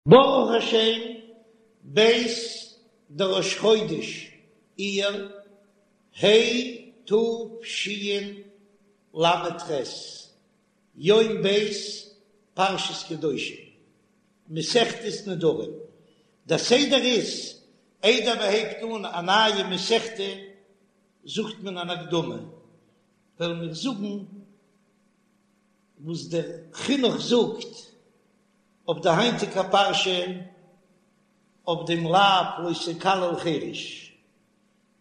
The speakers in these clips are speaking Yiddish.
ברוך השם, ב' דראש חודש אייר, ה' תשל"ח, יום ב' פרשת קדושים, מסכת נדרים. דער סדר איז, איידער מען הייבט אן א נייע מסכתא זאגט מען אן הקדמה, וועלן מיר זאגן וואס דער חינוך זאגט אויף די היינטיגע פרשה אויף דעם לאו לא תקלל חרש.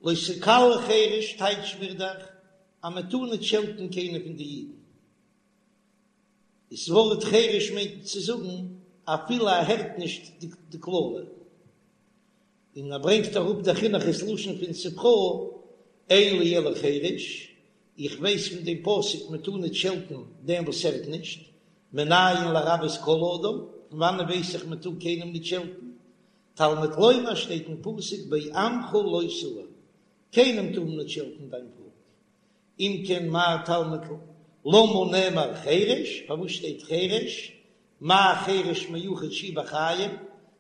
לא תקלל חרש טייטש מיר דאך אז מען טאר ניט שעלטן קיינער פון די אידן. דאס ווארט חרש מיינט צו זאגן אפילו ער הערט נישט די קללה. און ער ברענגט אראפ דער חינוך איז לשון פון ספרא, אין לי אלא חרש, איך ווייס פון דעם פסוק מען טאר ניט שעלטן דעם וואס הערט נישט, מנין לרבות כל אדם, פון וואנען ווייס איך מען טאר קיינעם ניט שעלטן? תלמוד לומר שטייט אין פסוק בעמך לא תאור, קיינעם טאר מען ניט שעלטן דיין פאלק, אם כן מה תלמוד למה נאמר חרש, פארוואס שטייט חרש, מה חרש מיוחד שהוא בחיים,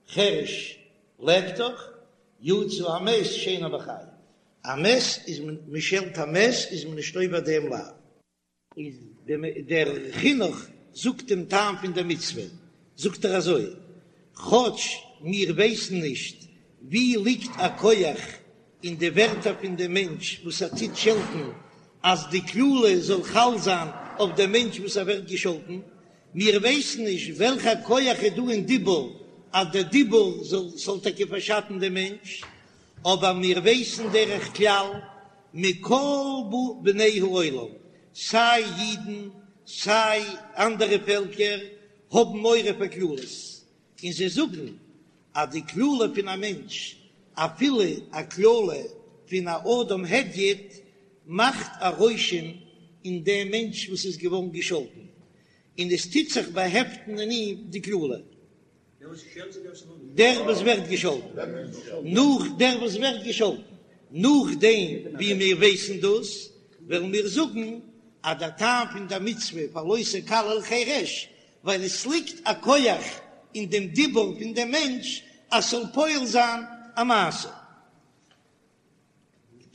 חרש לעבט דאך, יצא המת שאינו בחיים, א מת איז מען, מען שעלט א מת איז מען נישט עובר דעם לאו. איז דער חינוך זאגט דעם טעם פון דער מצוה, זאגט ער אזוי, כאטש מיר ווייסן נישט ווי ליגט א כח אין די ווערטער פון דעם מענטש וואס ער טוט שעלטן אז די קללה זאל חל זיין אויף דעם מענטש וואס ער ווערט געשאלטן, מיר ווייסן נישט וועלכע כח איז דא אין דיבור אז דער דיבור זאל זאל טאקע פארשאטן דעם מענטש, אבער מיר ווייסן דרך כלל מכל בני העולם, סיי אידן סיי אנדערע פעלקער האבן מורא פאר קללות, און זיי זאגן אז די קללה פון א מענטש, אפילו א קללה פון א אדם הדיוט, מאכט א רושם אין דעם מענטש וואס איז געווארן געשאלטן, און עס טוט זיך באהעפטן אין אים די קללה. דער וואס ווערט געשאלטן, נאך דער וואס ווערט געשאלטן, נאכדעם ווי מיר ווייסן דאס, וועלן מיר זאגן אז דער טעם פון דער מצוה פאר לא תקלל חרש, ווייל עס ליגט א כח אין דעם דיבור פון דעם מענטש אז ס'זאל פועל זיין א מעשה.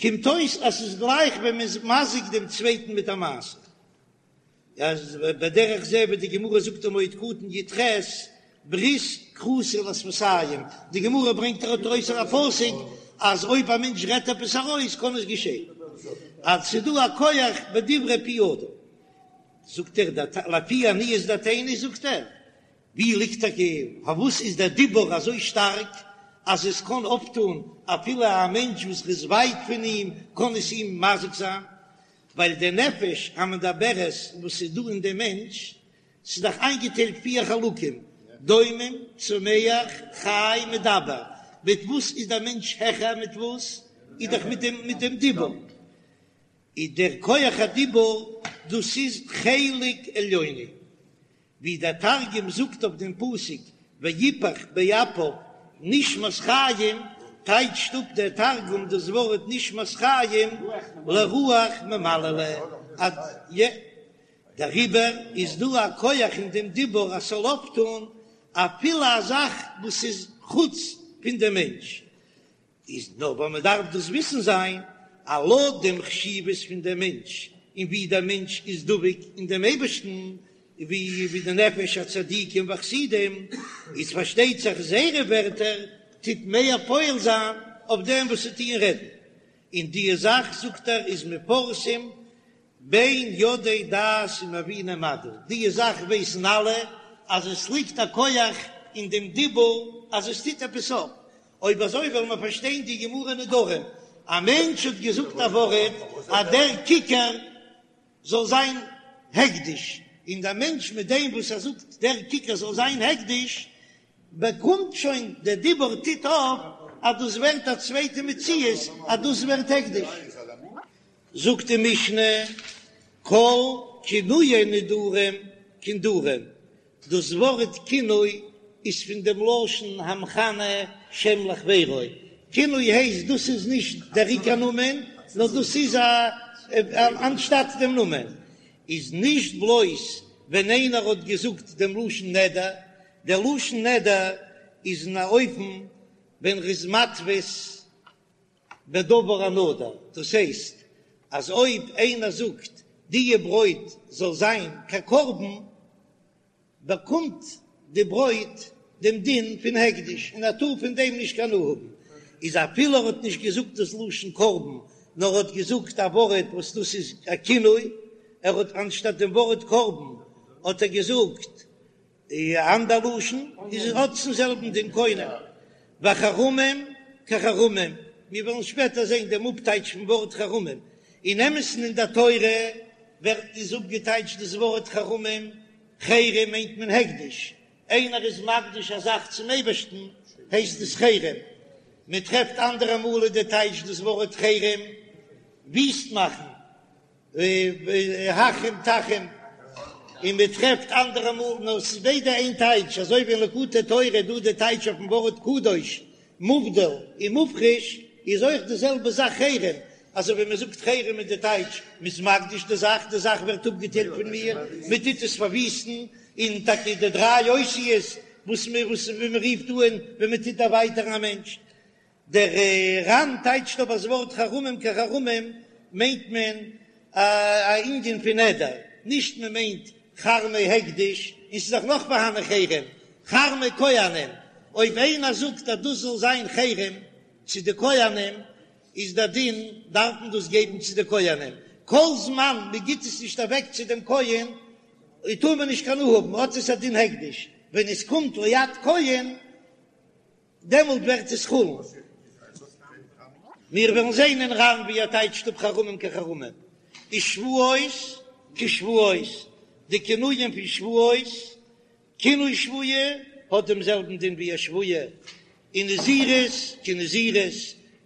קומט אויס אז ס'איז גלייך ווען מ'איז מזיק דעם צווייטן מיט א מעשה. אז בדרך זה ווי די גמרא זאגט אין מועד קטן י"ח, ברית כרותה לשפתים, די גמרא ברענגט ארויס א פסוק אז אויב א מענטש רעדט עפעס ארויס קען עס געשען, אז ס'איז דא א כח בדברי פי אדם. זאגט ער, לפי עניות דעתינו זאגט ער, ווי ליגט טאקע, פארוואס איז דער דיבור אזוי שטארק אז עס קען אפטון אפילו א מענטש וואס איז ווייט פון אים קען עס אים מזיק זיין, ווייל די נפש המדברת וואס איז דא אין דעם מענטש, ס'איז דאך איינגעטיילט פיר חלקים, דומם, צומח, חי, מדבר, מיט וואס איז דער מענטש העכער מיט וואס? איז דאך מיט דעם מיט דעם דיבור. איז דער כח הדיבור דאס איז חלק עליוני, ווי דער תרגום זאגט אויף דעם פסוק ויפח באפיו נשמת חיים, טייטשט אפ דער תרגום דאס ווארט נשמת חיים לרוח ממללא, דעריבער איז דא א כח אין דעם דיבור אז ס'זאל אויפטון אפילו א זאך וואס איז חוץ פון דעם מענטש, איז נאר ווייל מען דארף דאס וויסן זיין אז לויט דעם חשיבות פון דעם מענטש און ווי דער מענטש איז דבוק אין דעם אייבערשטן, ווי ווי די נפש הצדיקים והחסידים, איז פארשטייט זיך זייערע ווערטער טוט מער פועל זיין אויף דעם וואס זיי טוען רעדן, און די זאך זאגט ער איז מפורסם בין יודעי דעת ומביני מדע, די זאך ווייסן אלע אז עס ליגט א כח אין דעם דיבור אז עס טוט עפעס אויף, אויב אזוי וועלן מיר פארשטיין די גמרא נדרים, א מענטש האט געזאגט א ווארט אז דער כיכר זאל זיין הקדש, און דער מענטש מיט דעם וואס ער זאגט דער כיכר זאל זיין הקדש, באקומט שוין דער דיבור טוט אויף אז דאס ווערט א צווייטע מציאות אז דאס ווערט הקדש. זאגט די משנה, כל כינויי נדרים כנדרים, דאס ווארט כינוי איז פון דעם לשון המכנה שם לחבירו, כינוי הייסט דאס איז נישט דער עיקר נאמען, נאר דאס איז א אנשטאט דעם נאמען, איז נישט בלויז ווען איינער האט געזאגט דעם לשון נדר, דער לשון נדר. איז אין א אופן ווען ר'איז מתפיס בדבר הנדור, דאס הייסט אז אויב איינער זאגט דיע ברויט זאל זיין כקרבן, באקומט די ברויט דעם דין פון הקדש און ער טאר פון דעם נישט קיין הנאה האבן, איז אפילו ער האט נישט געזאגט דאס לשון קרבן נאר ער האט געזאגט א ווארט וואס דאס איז א כינוי, ער האט אנשטאט דעם ווארט קרבן האט ער געזאגט א אנדער לשון, איז האט עס דעם זעלבן דין קונם, וחרמים כחרמים, מיר וועלן שפעטער זען דעם אפטייטש פון ווארט חרמים, אין אמת'ן אין דער תורה ווערט איז אפגעטייטשט דאס ווארט חרמים, חרם מיינט מען הקדש, איינער איז מקדיש א זאך צום אייבערשטן הייסט עס חרם, מען טרעפט אנדערע מאל איז די טייטש דאס ווארט חרם וויסט מאכן, החרם תחרים, און מען טרעפט אנדערע מאל, נאר עס איז ביידע איין טייטש, אזוי ווי אין ליקוטי תורה איז דא די טייטש אויפן ווארט קדוש, מובדל און מופרש, איז אויך די זעלבע זאך חרם, אזוי ווי מען זאגט חרם איז די טייטש, מען איז מקדיש די זאך, די זאך ווערט אפגעטיילט פון מיר, מען טוט עס פארוויסטן, און טאקע די דריי אותיות וואס מען וואס ווי מען רופט אן ווען מען טוט דערווייטערן א מענטש. דער ר"ן טייטשט אבער דאס ווארט חרמים כחרמים מיינט מען א ענין פון נדר, נישט מען מיינט חרמי הקדש, און ס'איז דאך נאך פארהאן חרם, חרמי כהנים, אויב איינער זאגט אז דאס זאל זיין חרם צו די כהנים, איז דער דין דארף מען דאס געבן צו די כהנים, כל זמן מען גיט עס נישט אוועק צו דעם כהן טאר מען נישט קיין הנאה האבן, האט עס א דין הקדש, ווען עס קומט ליד כהן דעמאלט ווערט עס חולין. מיר וועלן זען אין ר"ן ווי ער טייטשט אפ חרמים כחרמים, ושבועות כשבועות, די כינויים פון שבועות, כינוי שבועה האט דעם זעלבן דין ווי א שבועה, און נזירות כנזירות,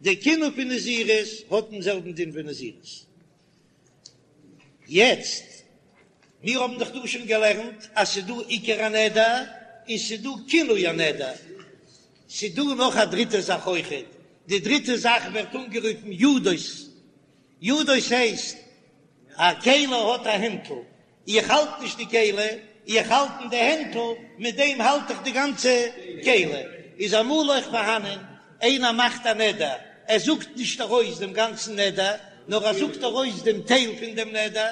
די כינוי פון נזירות האט דעם זעלבן דין ווי נזירות. יעצט, מיר האבן דאך דא שוין געלערנט אז ס'איז דא עיקר הנדר און ס'איז דא כינוי הנדר, ס'איז דא נאך א דריטע זאך אויכעט, די דריטע זאך ווערט אנגערופן ידות, ידות הייסט א כלי האט א הענטל, איך האלט נישט די כלי, איך האלט אין די הענטל, מיט דעם האלט איך די גאנצע כלי. איז אמאל אויך פארהאנען איינער מאכט א נדר, ער זאגט נישט ארויס דעם גאנצן נדר, נאר ער זאגט ארויס דעם טייל פון דעם נדר,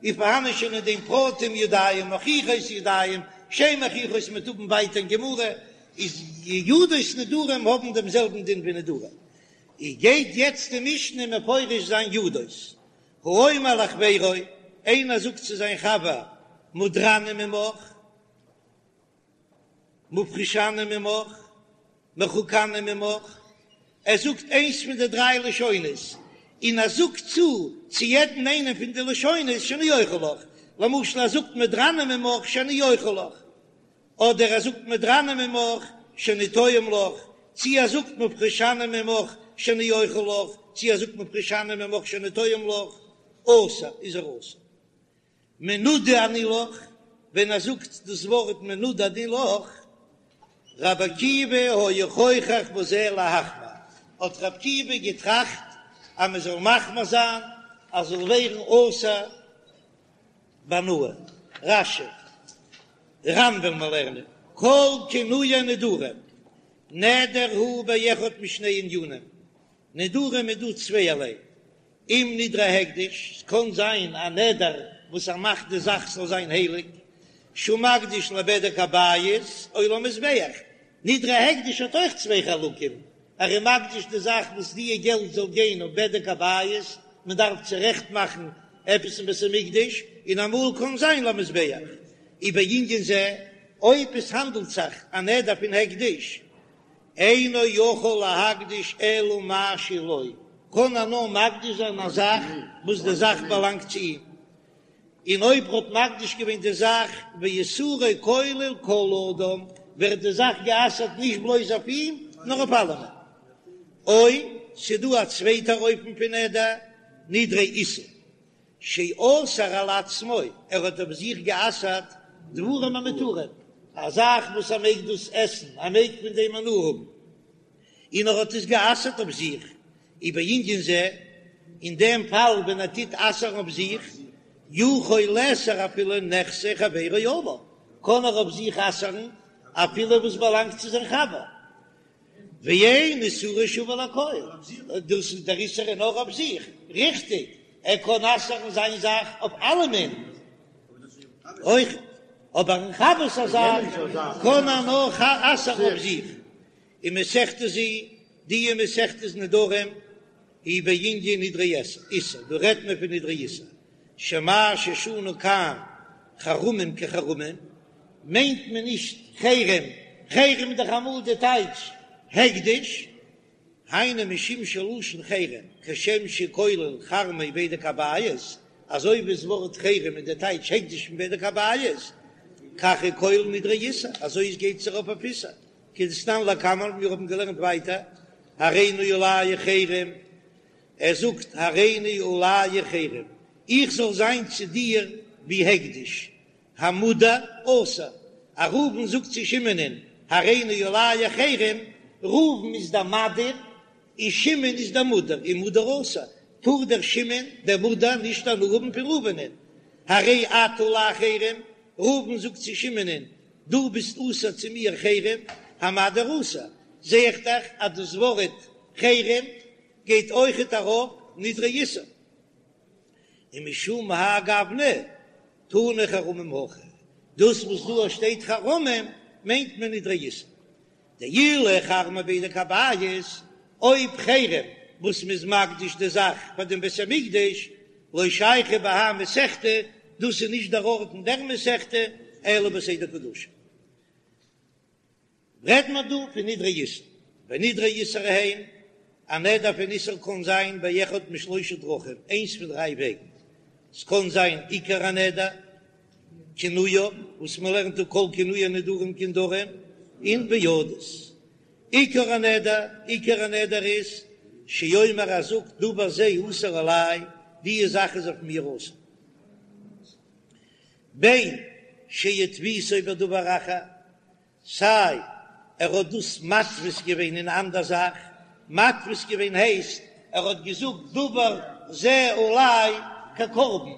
איז פארהאנען שוין אין דעם פרטים ידיים מוכיחות ידיים שאין מוכיחות מ'וועט האבן ווייטער אין גמרא, איז ידות נדרים האבן דעם זעלבן דין ווי נדרים. איז גייט יעצט די משנה מפרש זיין ידות. האומר לחבירו, איינער זאגט צו זיין חבר, מודרני ממך, מופרשני ממך, מרוחקני ממך, ער זאגט איינס פון די דריי לשונות, און ער זאגט צו צו יעדן איינעם פון די לשונות שאני אוכל לך, למשל ער זאגט מודרני ממך שאני אוכל לך, אדער ער זאגט מודרני ממך שאני טועם לך, צי ער זאגט מופרשני ממך שאני אוכל לך, צי ער זאגט מופרשני ממך שאני טועם לך, אסור איז ער אסור. מנודה אני לך, ווען ער זאגט דאס ווארט מנודה אני לך, רבי עקיבא היה חוכך בזה להחמיר, האט רבי עקיבא געטראכט אז מען זאל מחמיר זיין אז זאל ווערן אסור בהנאה. רש"י, ר"ן וועלן מיר לערנען, כל כינויי נדרים, נדר הוא באחד משני ענינים, נדרים איז דא צווייערליי, אם נדרי הקדש, ס'קען זיין א נדר וואס ער מאכט די זאך זאל זיין הייליג, שהוא מקדיש לבדק הבית או למזבח, נדרי הקדש האט אויך צוויי חלקים, ער איז מקדיש די זאך וואס דיע געלט זאל גיין אויף בדק הבית, מען דארף צורעכט מאכן עפעס אין בית המקדש, און אמאל קען זיין למזבח. ובענין זה, אויב עס האנדלט זיך א נדר פון הקדש, אינו יכול להקדיש אלא מה שלו, קען ער נאר מקדיש זיין א זאך וואס די זאך באלאנגט צו אים, און אויב ער האט מקדיש געווען די זאך ואיסורו כולל כל אדם, ווערט די זאך גע'אסר'ט נישט בלויז אויף אים, נאר אויף אלעמען. או ס'דא א צווייטער אופן פון נדר, נדרי איסור, שאסר על עצמו, ער האט אויף זיך גע'אסר'ט דברים המותרים, א זאך וואס ער מעג דאס עסן, ער מעג פון דעם הנאה האבן, און ער האט עס גע'אסר'ט אויף זיך, ובענין זה, אין דעם פאל ווען ער טוט אסר'ן אויף זיך, יכול לאסור אפילו נכסי חברו עליו, קען ער אויף זיך אסר'ן. אפילו וואס באלאנגט צו זיין חבר. ואין איסורו שווה לכל, דאס איז דער איסור איז נאר אויף זיך, ריכטיג, ער קען אסר'ן זיין זאך אויף אלעמען אויך, אבער אין חבר'ס א זאך קען ער נאר אסר'ן אויף זיך. ומסכתא זו, די מסכת נדרים היא בענין נדרי איסור, דא רעדט מען פון נדרי איסור, שמה ששנו כאן חרמים כחרמים, מיינט מען נישט חרם, חרם איז דאך אמאל די טייטש הקדש, היינו משום שלשון חרם כשם שכולל חרמי בדק הבית, אזוי ווי דאס ווארט חרם איז די טייטש הקדש פון בדק הבית, כך הוא כולל נדרי איסור, אזוי עס גייט עס ארויף אויף איסור, כדתנן לקמן, מיר האבן געלערנט ווייטער, הריני עליך חרם, ער זאגט הריני עליך חרם, איך זאל זיין צו דיר ווי הקדש, המודר אסור, אז ראובן זאגט צו שמעונ'ען הריני עליך חרם, ראובן איז דער מדיר און שמעון איז דער מודר, און מודר אסור, טאר דער שמעון דער מודר נישט הנאה האבן פון ראובנ'ען, הרי אתה עלי חרם, ראובן זאגט צו שמעונ'ען דו ביסט אסור צו מיר חרם, המדיר אסור, זע איך דאך אז דאס ווארט חרם גייט אויכעט ארויף נדרי איסור. ומשום האי גוונא תנא חרמים הכא, דאס וואס דא שטייט חרמים מיינט מען נדרי איסור. דאילו חרמי בדק הבית, אויב חרם וואס מ'איז מקדיש די זאך פאר דעם בית המקדש, לא שייכא בהאי מסכתא, דאס איז נישט דער ארט אין דער מסכתא, אלא בסדר קדשים. רעדט מען דא פון נדרי איסור, ונדרי איסור הן, א נדר פון איסור קען זיין באחד משלושה דרכים, איינס פון דריי וועגן, ס'קען זיין עיקר הנדר, כינויו, וואס מ'לערנט דא כל כינויי נדרים כנדרים, און וידות. עיקר הנדר, עיקר הנדר איז, שיאמר ער זאגט דבר זה אסור עלי, די זאך איז אויף מיר אסור. בין שהתפיסו בדבר אחר, סיי ער האט דאס מתפיס געווען אין אן אנדער זאך, מתפיס געווען הייסט ער האט געזאגט דבר זה עלי כקרבן,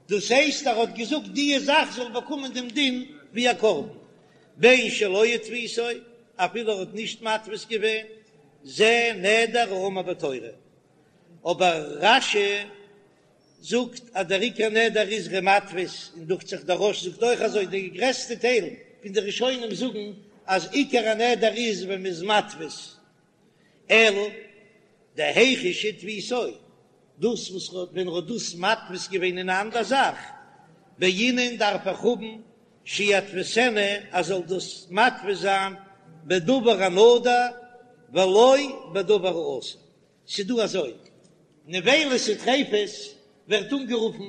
דאס הייסט ער האט געזאגט די זאך זאל באקומען דעם דין ווי א קרבן, בין שלא התפיסו, אפילו ער האט נישט מתפיס געווען, זה נדר האמור בתורה. אבער רש"י זאגט אז דער עיקר נדר איז ער איז מתפיס, און דוכט זיך דער רא"ש זאגט אויך אזוי, די גרעסטע טייל פון די ראשונים זאגן אז עיקר הנדר איז ווען מ'איז מתפיס, אלא דהיכא שהתפיסו, דאס וואס ווען ער האט דאס מתפיס געווען אין א אנדער זאך, בעינן דארף איך האבן שיתפיסנה אז זאל דאס מתפיס זיין בדבר הנדור ולא בדבר האסור. ס'דא אזוי, נבילות וטריפות ווערט אנגערופן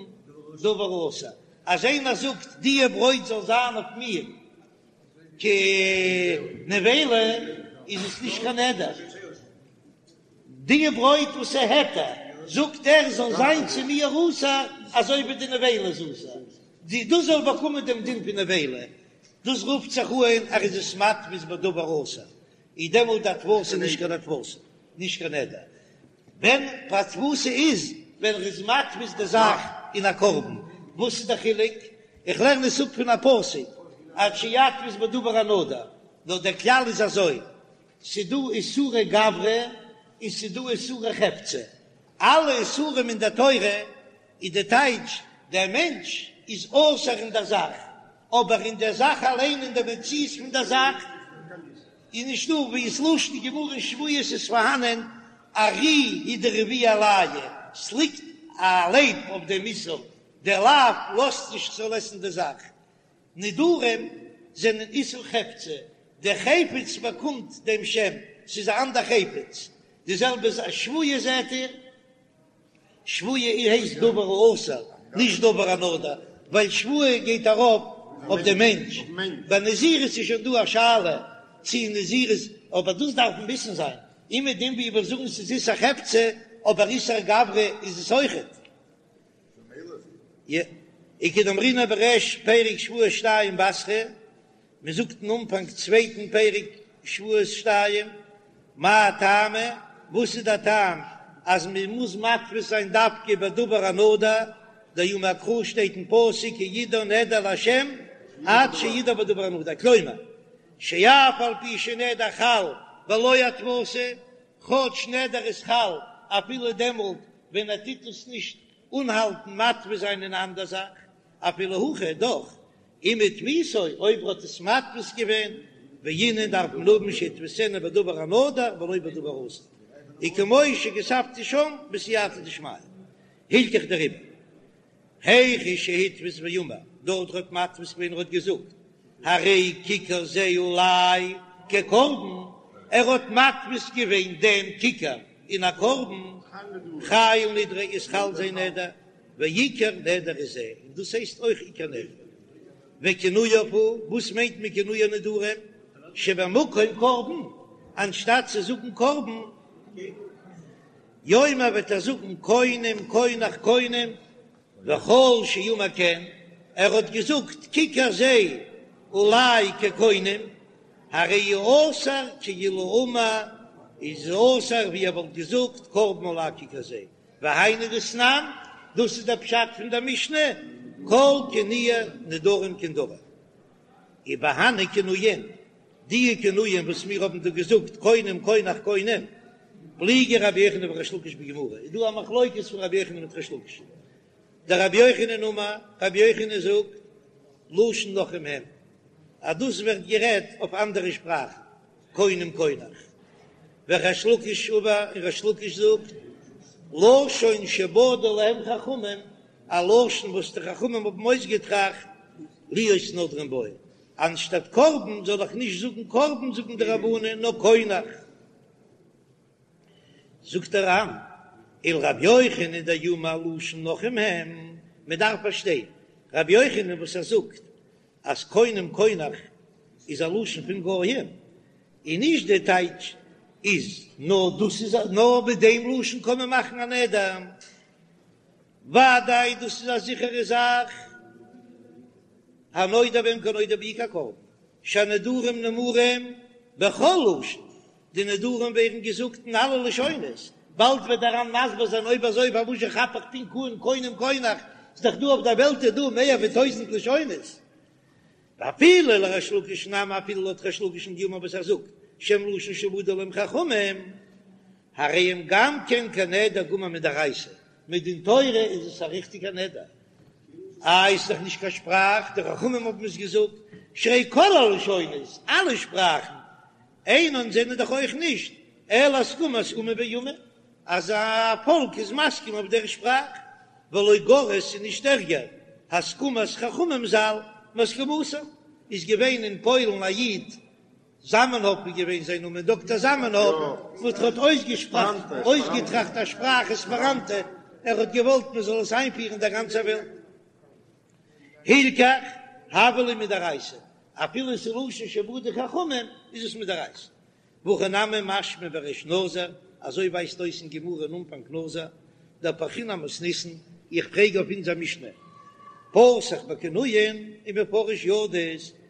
דבר האסור, אז איינער זאגט דיע ברויט זאל זיין אויף מיר כנבילה איז עס נישט קיין נדר, דיע ברויט וואס איז היתר זאגט ער זאל זיין צו מיר אסור אזוי ווי די נבילה איז אסור, דאס זאל באקומען דעם דין פון נבילה, דאס רופט זיך אן ער איז עס מתפיס בדבר האסור, איז דעמאלט די התפסה נישט קיין התפסה, נישט קיין נדר. ווען התפסה איז ווען ער איז מתפיס די זאך אין א קרבן, וואס איז די חילוק? איך לערן עס אפ פון א פסוק עד שיתפיס בדבר הנדור, נאר דער כלל איז אזוי, ס'דא איסורי גברא און ס'דא איסורי חפצא, אלע איסורים אין דער תורה איז די טייטש, דער מענטש איז אסור אין דער זאך, אבער אין דער זאך אליין, אין דער מציאות פון דער זאך, איז נישטא, ווי ס'לשון גמרא אין שבועות איז פארהאנען ארי הוא דרביע עלייהו, ס'ליגט א לייב אויף דעם איסור, דער לאו לאזט נישט כ'זאל עסן די זאך. נדרים זענען איסור חפצא, דער חפץ באקומט דעם שם, ס'איז א אנדער חפץ, די זעלבע איז א שבועה זעט איר. שבועה הייסט דבר האסור, נישט דבר הנדור, ווייל שבועה גייט ארויף אויף די מענטש, ביי נזירות איז שוין דא א שאלה צי נזירות, אבער דאס דארף מען וויסן זיין, און מיט דעם ווי מיר זאגן ס'איז איסור חפצא, אבער איסור גברא איז עס אויכעט. וכדאמרינן בריש פרק שבועות שתיים בתרא, מען זאגט אין אנפאנג צווייטן פרק שבועות שתיים, מאי טעמא, וואס איז דער טעם אז מען מוז מתפיס זיין דווקא בדבר הנדור, דאמר קרא שטייט אין פסוק כי ידור נדר לה' עד שידור בדבר הנדור, כלומר. שאף על פי שנדר חל בלא הדפסה, כאטש נדר איז חל אפילו דעמאלט ווען ער טוט עס נישט אנהאלטן מתפיס זיין אין אן אנדער זאך, אפילו הכי דאך אם הדפיסו אויב ער האט עס מדפיס געווען, בעינן דארף מען האבן שידפיסנו בדבר הנדור ולא בדבר האסור, וכמו שכתבתי שם בסייעתא דשמיא, הלכך דעריבער היכא שהדפיס ואמר, דארט האט מדפיס געווען ער האט געזאגט הרי כיכר זה עלי כקרבן, ער האט מדפיס געווען דעם כיכר אין א קרבן, חייל נדריה איז חל זיין נדר, ועיקר נדר הוא זה, און דאס הייסט אויך עיקר נדר. וכינויו הוא, וואס מיינט מען כינוי הנדרים? שבמקום קרבן, אנשטאט צו זאגן קרבן, יאמר וועט ער זאגן קונם קונח קונם, וכל שאמר כן, ער האט געזאגט כיכר זה עלי כקונם, הרי הוא אסור כאילו אמר, איז אסור ווי ער וואלט געזאגט קרבן עלי כיכר זה, והיינו דתנן, דאס איז דער פשט פון דער משנה, כל כינויי נדרים כנדרים. ובהני כינויין, די כינויים וואס מיר האבן דא געזאגט קונם קונח קונם, פליגי רבי יוחנן וריש לקיש בגמרא, איז דא א מחלוקת פון רבי יוחנן מיט ריש לקיש. דרבי יוחנן אמר, רבי יוחנן זאגט, לשון נכרים הם, אז דאס ווערט גערעדט אויף אנדערע שפראכן, קונם קונח. וריש לקיש אמר, און ריש לקיש זאגט, לשון שבדו להם חכמים, א לשון וואס די חכמים האבן אויסגעטראכט, להיות נודרים בו, אנשטאט קרבן זאל איך נישט זאגן קרבן זאגן די רבנן נאר קונח. זאגט דער ר"ן, ולרבי יוחנן דאמר לשון נכרים הם, מען דארף פארשטיין רבי יוחנן וואס ער זאגט אז קונם קונח איז א לשון פון גויים, און נישט די טייטש איז נאר דאס איז נאר מיט דעם לשון קען מען מאכן א נדר, ודאי דאס איז א זיכערע זאך, הנודר בהם כנודר בעיקר קרבן, שהנדרים נאמרים בכל לשון, די נדרים ווערן געזאגט אין אלע לשונות, באלד וועט דער ר"ן מסביר זיין אויב אזוי פארוואס זשע כאפ איך פונקט אן קונם קונח, ס'איז דאך דא אויף דער וועלט איז דא מער ווי טויזענט לשונות. ואפילו לריש לקיש נמי אפילו לויט ריש לקיש'ן דאמר וואס ער זאגט שהם לשון שבדו להם חכמים, הרי הם גם כן כנדר גמור מדאורייתא, מדין תורה איז עס א ריכטיגע נדר, איי ס'איז דאך נישט קיין שפראך, די חכמים האבן עס געזאגט, שהרי כל הלשונות, אלע שפראכן, אינן זענען דאך אויך נישט אלא הסכמת אומה באומה, אז א פאלק איז מסכים אויף דער שפראך, ולא גרע ס'איז נישט ערגער, הסכמת חכמים ז"ל מהסכמתם, איז געווען אין פוילן א איד זאמענהאפ איז געווען זיין נאמען, דאקטער זאמענהאפ, וואס האט אויסגעטראכט א שפראך עספעראנטא, ער האט געוואלט מען זאל עס איינפירן אין דער גאנצער וועלט. הילכך, הוה ליה מדאורייתא, אפילו עס איז לשון שבדו חכמים, איז עס מדאורייתא. והכי נמי משמע בריש נזיר, אזוי ווייזט אויס אין גמרא אין אנפאנג נזיר, דאפרכינן אמתניתין, איך פרעג אויף אונזער משנה, פתח בכינויין ומפרש ידות,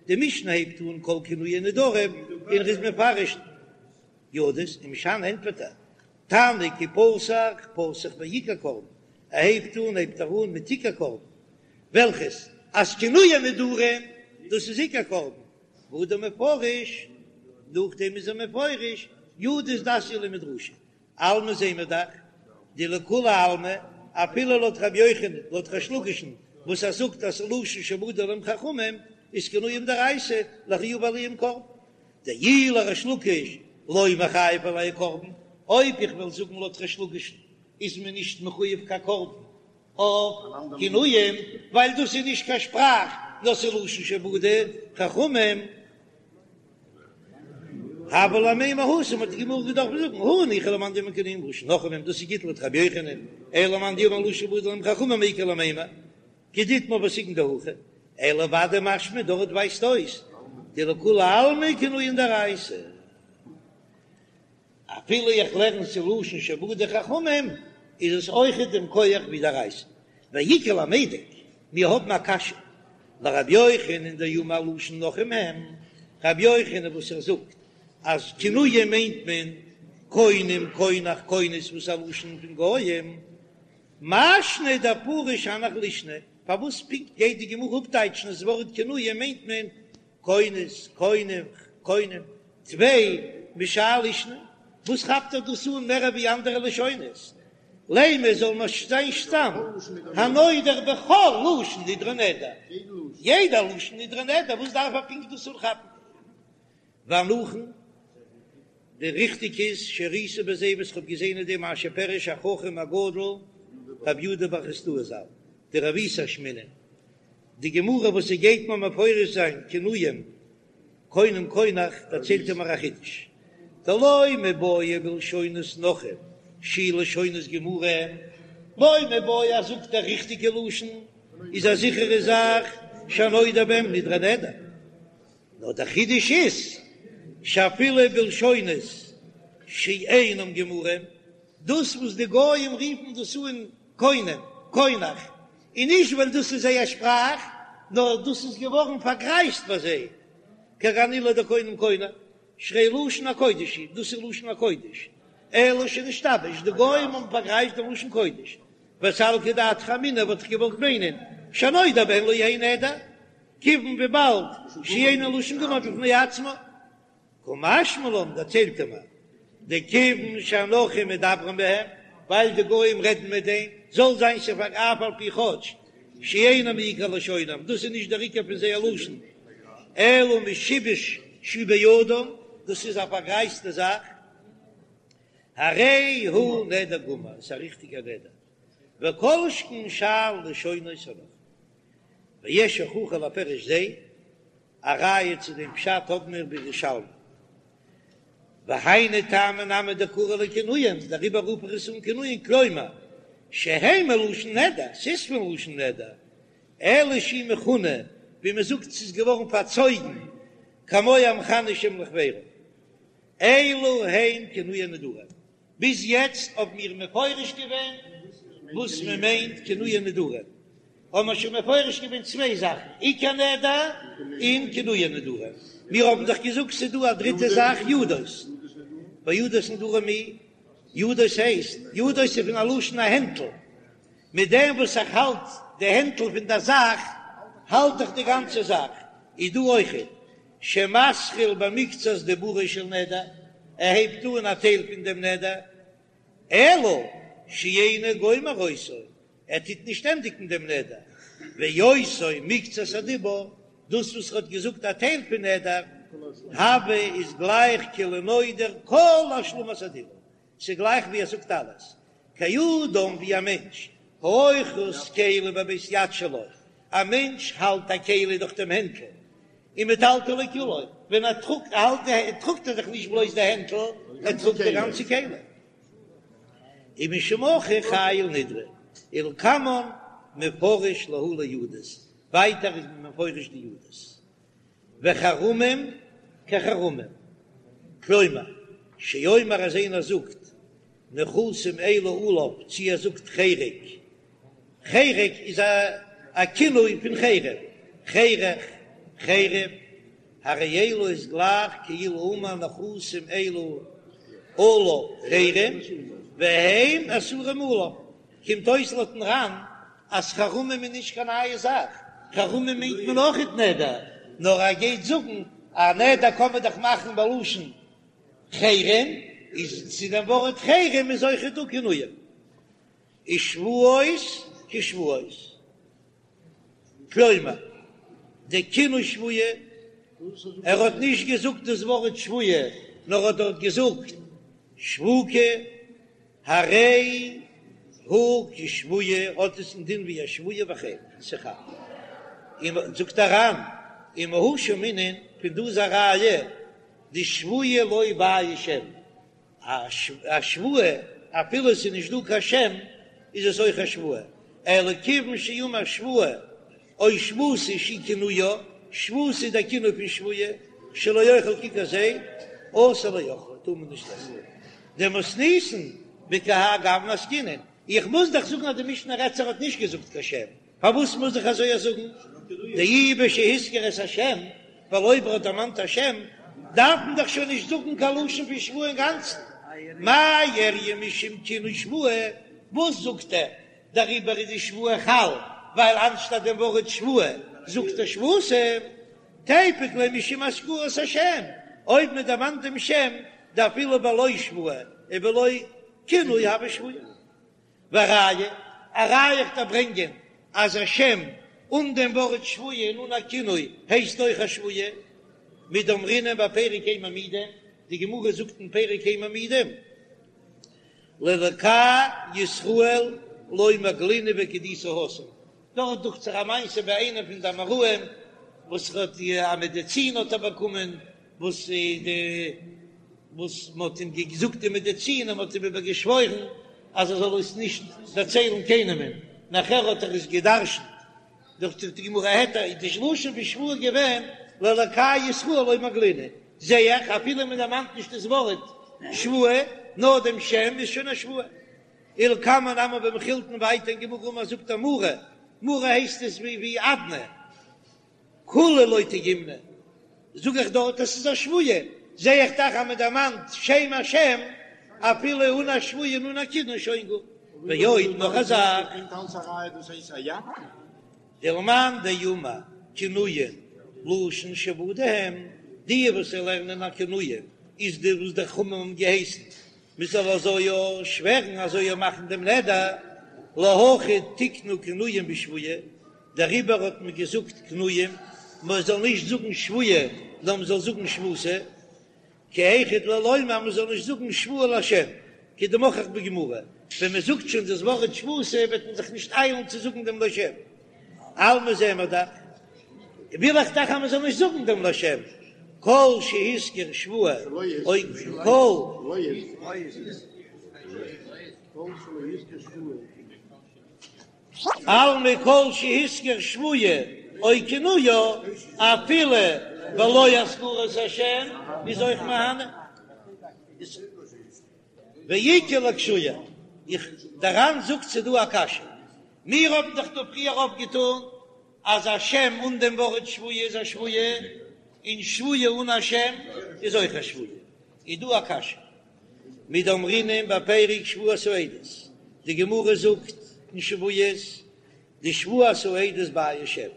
די משנה הייבט אן כל כינויי נדרים און ער איז מפרש ידות, ומשני ענטפערט ער, תנא כי פתח פתח בעיקר קרבן, ער הייבט אן הייבט ער אן מיט עיקר קרבן, וועלכעס אז כינויי נדרים דאס איז עיקר קרבן, והדר מפרש, נאכדעם איז ער מפרש ידות דאתיא למדרשא, אלמא זעהן מיר דאך דלכולי עלמא, אפילו לויט רבי יוחנן, לויט ריש לקיש'ן וואס ער זאגט אז ס'לשון שבדו להם חכמים איז כינויים דאורייתא לחיובא עלייהו קרבן, דאי לריש לקיש לא מיחייב עלייהו קרבן, אויב איך וועל זאגן לויט ריש לקיש'ן איז מען נישט מחויב קיין קרבן אויף כינויים, ווייל דאס איז נישט קיין שפראך נאר ס'איז לשון שבדו חכמים. הוה ליה למימר התם האט די גמרא געדארפט זאגן הא ניחא למאן דאמר כינויים לשון נכרים דאס איז גוט לויט רבי יוחנן אלא למאן דאמר לשון שבדו להם חכמים מאי איכא למימר כדאיתמר פסק'נט דהכי אלא ודאי משמע דארט ווייזט אויס דלכולי עלמא כינויים דאורייתא. אפילו איך לערן ס'איז לשון שבדו חכמים איז עס אויכעט דעם כח ווי דאורייתא. ואיכא למידק, מיר האבן א קשיא לרבי יוחנן דאמר לשון נכרים הם, רבי יוחנן וואס ער זאגט אז כינויים מיינט מען קונם קונח כונס וואס איז א לשון פון גויים, מאי שנא דפריש הנך לישני, פארוואס פונקט גייט די גמרא אפטייטשן אז ווארט כינויים מיינט מען כונס קונח? קונם, טפי משאר לישנא, וואס כאפט ער דאס אן מער ווי אנדערע לשונות? לימא זאל מען זיין סתם הנודר בכל לשון נדרו נדר, יעדע לשון נדרו נדר, וואס דארף ער פונקט דאס אנכאפן? והנכון, די ריכטיג איז שראיתי בזה וואס כ'האב געזען אין דעם מה שפירש החכם הגדול רבי יהודה בר חסדאי ז"ל, דרבותא אשמעינן, די גמרא וואס ס'גייט מיר מפרש זיין כינויים קונם קונח דערציילט ער מיר א חידוש, דלא מיבעיא בלשונות נכרים שיהו לשונות גמורים, לא מיבעיא אז זאגט דער ריכטיגע לשון איז א זיכערע זאך שהנודר בהם נדרו נדר. נאר דער חידוש איז שאפילו בלשונות שאינם גמורים, דאס וואס די גויים רופן דאס אן קונם, קונח, און נישט ווייל דאס איז זייער שפראך, נאר דאס איז געווארן פארגרייזט ביי זיי, כגון אלו דקונם קונח, שהרי לשון הקודש הוא, דאס איז לשון הקודש, אלא שנשתבש, די גויים האבן פארגרייזט דעם לשון קודש, וסלקא דעתך אמינא וואלט איך געוואלט מיינען, שהנודר בהן לא יהא נדר, כיוון וויבאלד שאינן לשון גמור בפני עצמו, קא משמע לן דערציילט ער מיר, דכיוון שהנכרים מדברים בהם, ווייל די גוים רעדן מיט דעם, זאל זיין ס'פאר אף על פי כאטש שאינם מעיקר לשונם, דאס איז נישט דער עיקר פון זייער לשון, אלא משיבוש שהוא בידם, דאס איז א פארגרייזטע זאך, הרי הוא נדר גמור, עס איז א ריכטיגער נדר, וכל שכן שאר לשונות הנכרים. ויש הוכחה לפירוש זה, א ראיה צו דעם פשט האבן מיר בירושלמי. והיינו טעמא נמי דקרי להו כינויים, דעריבער רוף איך עס אן כינויים, כלומר, שהם מלשון נדר, ס'איז פון לשון נדר, אלא שהוא מכונה, ווי מען זאגט ס'איז געווארן פארצויגן, כמו המכנה שם לחבירו. אלו הן כינויי נדרים. ביז יעצט האבן מיר מפרש געווען וואס מען מיינט כינויי נדרים, האבן מיר שוין מפרש געווען צוויי זאכן, עיקר נדר און כינויי נדרים. מיר האבן דאך געזאגט ס'איז דא א דריטע זאך ידות, וידות נדרים מי, ידות הייסט, ידות איז פון א לשון א הענטל, מיט דעם וואס איך האלט די הענטל פון דער זאך, האלט איך די גאנצע זאך, איז דא אויכעט שמתחיל במקצת דיבורו של נדר, ער הייבט אן א טייל פון דעם נדר, אלא שאינו גומר אותו, ער טוט נישט ענדיגן דעם נדר, ואותו מקצת הדיבור, דאס וואס ער האט געזאגט א טייל פון נדר, הוי איז גלייך כאילו נודר כל השלמת הדיבור, ס'איז גלייך ווי ער זאגט אלעס, כאדם ווי א מענטש, האוחז כלי בבית יד שלו, א מענטש האלט א כלי דורך דעם הענטל, ומטלטלו כולו, ווען ער טראגט האלט ער טראגט ער דאך נישט בלויז די הענטל, ער טראגט די גאנצע כלי. ומשום הכי חייל נדרי, ולקמן מפרש להו לידות, ווייטער איז מען מפרש די ידות. וחרמים כחרמים, כלומר, שאומר אז איינער זאגט נכסים אלו עליו, צי ער זאגט חרק, חרק איז א כינוי פון חרם, חרך, חרם, הרי אלו איז גלייך כאילו אמר נכסים אלו עליו חרם, והם אסורים עליו, קומט אויס לויטן ר"ן אז חרמים איז נישט קיין נייע זאך, חרמים מיינט מען אויכעט נדר, נאר ער גייט זאגן א נדר קען מען דאך מאכן בלשון חרם, איז צו דעם ווארט חרם איז אויכעט דא כינויים, ושבועות כשבועות, כלומר די כינוי שבועה, ער האט נישט געזאגט דאס ווארט שבועה, נאר האט דארט געזאגט שבוקה. הרי הוא כשבועה האט עס א דין ווי א שבועה וכן ס'חל. און זאגט דער ר"ן ומהא שמעינן פון דא איז א ראיה דשבועה לא בעיא שם א שבועה אפילו עס איז נישט דא קיין שם איז עס אויך א שבועה אלא כיוון שאמר שבועה או שבותה שהיא כינויה, שבותה איז דער כינוי פון שבועה, שלא אוכל ככר זה, אסור לאוכלה, טאר מען נישט עסן. דמתניתין בכהאי גוונא עסקינן, איך מוז דאך זאגן אז די משנה רעדט זיך האט נישט געזאגט קיין שם, פארוואס מוז איך אזוי זאגן? דאי בשהזכיר את השם, ווייל אויב ער האט דערמאנט א שם, דארף מען דאך שוין נישט זאגן קיין לשון פון שבועה אינגאנצן. מאי איריא משום כינוי שבועה, וואס זאגט ער? דעריבער איז די שבועה חל, ווייל אנשטאט דעם ווארט שבועה זאגט ער שבותה, תיפוק ליה משום הזכרת השם. אויב מען דערמאנט דעם שם, דאפילו בלא שבועה ובלא כינוי הוי שבועה. וראיה, א ראיה איך דארף ברענגען אז א שם אן דעם ווארט שבועה און אן א כינוי הייסט אויך א שבועה, מדאמרינן בפרק אין מעמידין, די גמרא זאגט אין פרק אין מעמידין, לאלקי ישראל לא מגלינא וכדאיתא התם, דארט דוכט זיך א מעשה ביי איינעם פון די אמוראים וואס האט א מעדעצין האט ער באקומען וואס די וואס מען האט אים געזאגט די מעדעצין און מען האט אים איבער געשוואוירן אז ער זאל עס נישט דערציילן קיינעמען, נאכער האט ער עס גע'דרש'נט דוכט זיך די גמרא העט איז די לשון פון שבועה געווען לאלקי ישראל לא מגלינא, זע איך אפילו מען דערמאנט נישט דאס ווארט שבועה נאר דעם שם איז שוין א שבועה. ולקמן נמי במכילתין ווייטער אין גמרא אמר זאגט ער מרי, מרי הייסט עס ווי ווי אדני, כולהו לא טעימנא, זאג איך דארט עס איז א שבועה, זע איך דאך אז מען דערמאנט שם השם אפילו אן א שבועה און אן א כינוי שוין גוט, ועוד נאך א זאך. דלמאן דאמר כינויין לשון שעבודה הם, די וואס לערנען אז כינויין איז די וואס די חכמים האבן געהייסן מען זאל אזוי יא שווערן אזוי יא מאכן דעם נדר, להכי תיקנו כינויים בשבועה, דעריבער האט מען געזאגט כינויים, מען זאל נישט זאגן שבועה נאר מען זאל זאגן שבותא, כי היכי דלא לומר מען זאל נישט זאגן שבועה לשם, כדמוכח בגמרא, ווען מען זאגט שוין דאס ווארט שבותא וועט מען זיך נישט איילן צו זאגן דעם לשם, אלמא זעען מיר דאך. וויל איך דאך אז מען זאל נישט זאגן דעם לשם, כל שהזכיר שבועה או כל אלמא כל שהזכיר שבועה או כינויה אפילו בלא הזכרת השם איז אויך מהני. ואיכא לאקשויי, איך, דער ר"ן זאגט ס'דא א קשיא, מיר האבן דאך דא פריער אויפגעטון אז א שם אן דעם ווארט שבועה איז א שבועה, און שבועה אן א שם איז אויך א שבועה. איז דא א קשיא, מדאמרינן בפרק שבועת העדות, די גמרא זאגט אין שבועות, דשבועת העדות בעיא שם,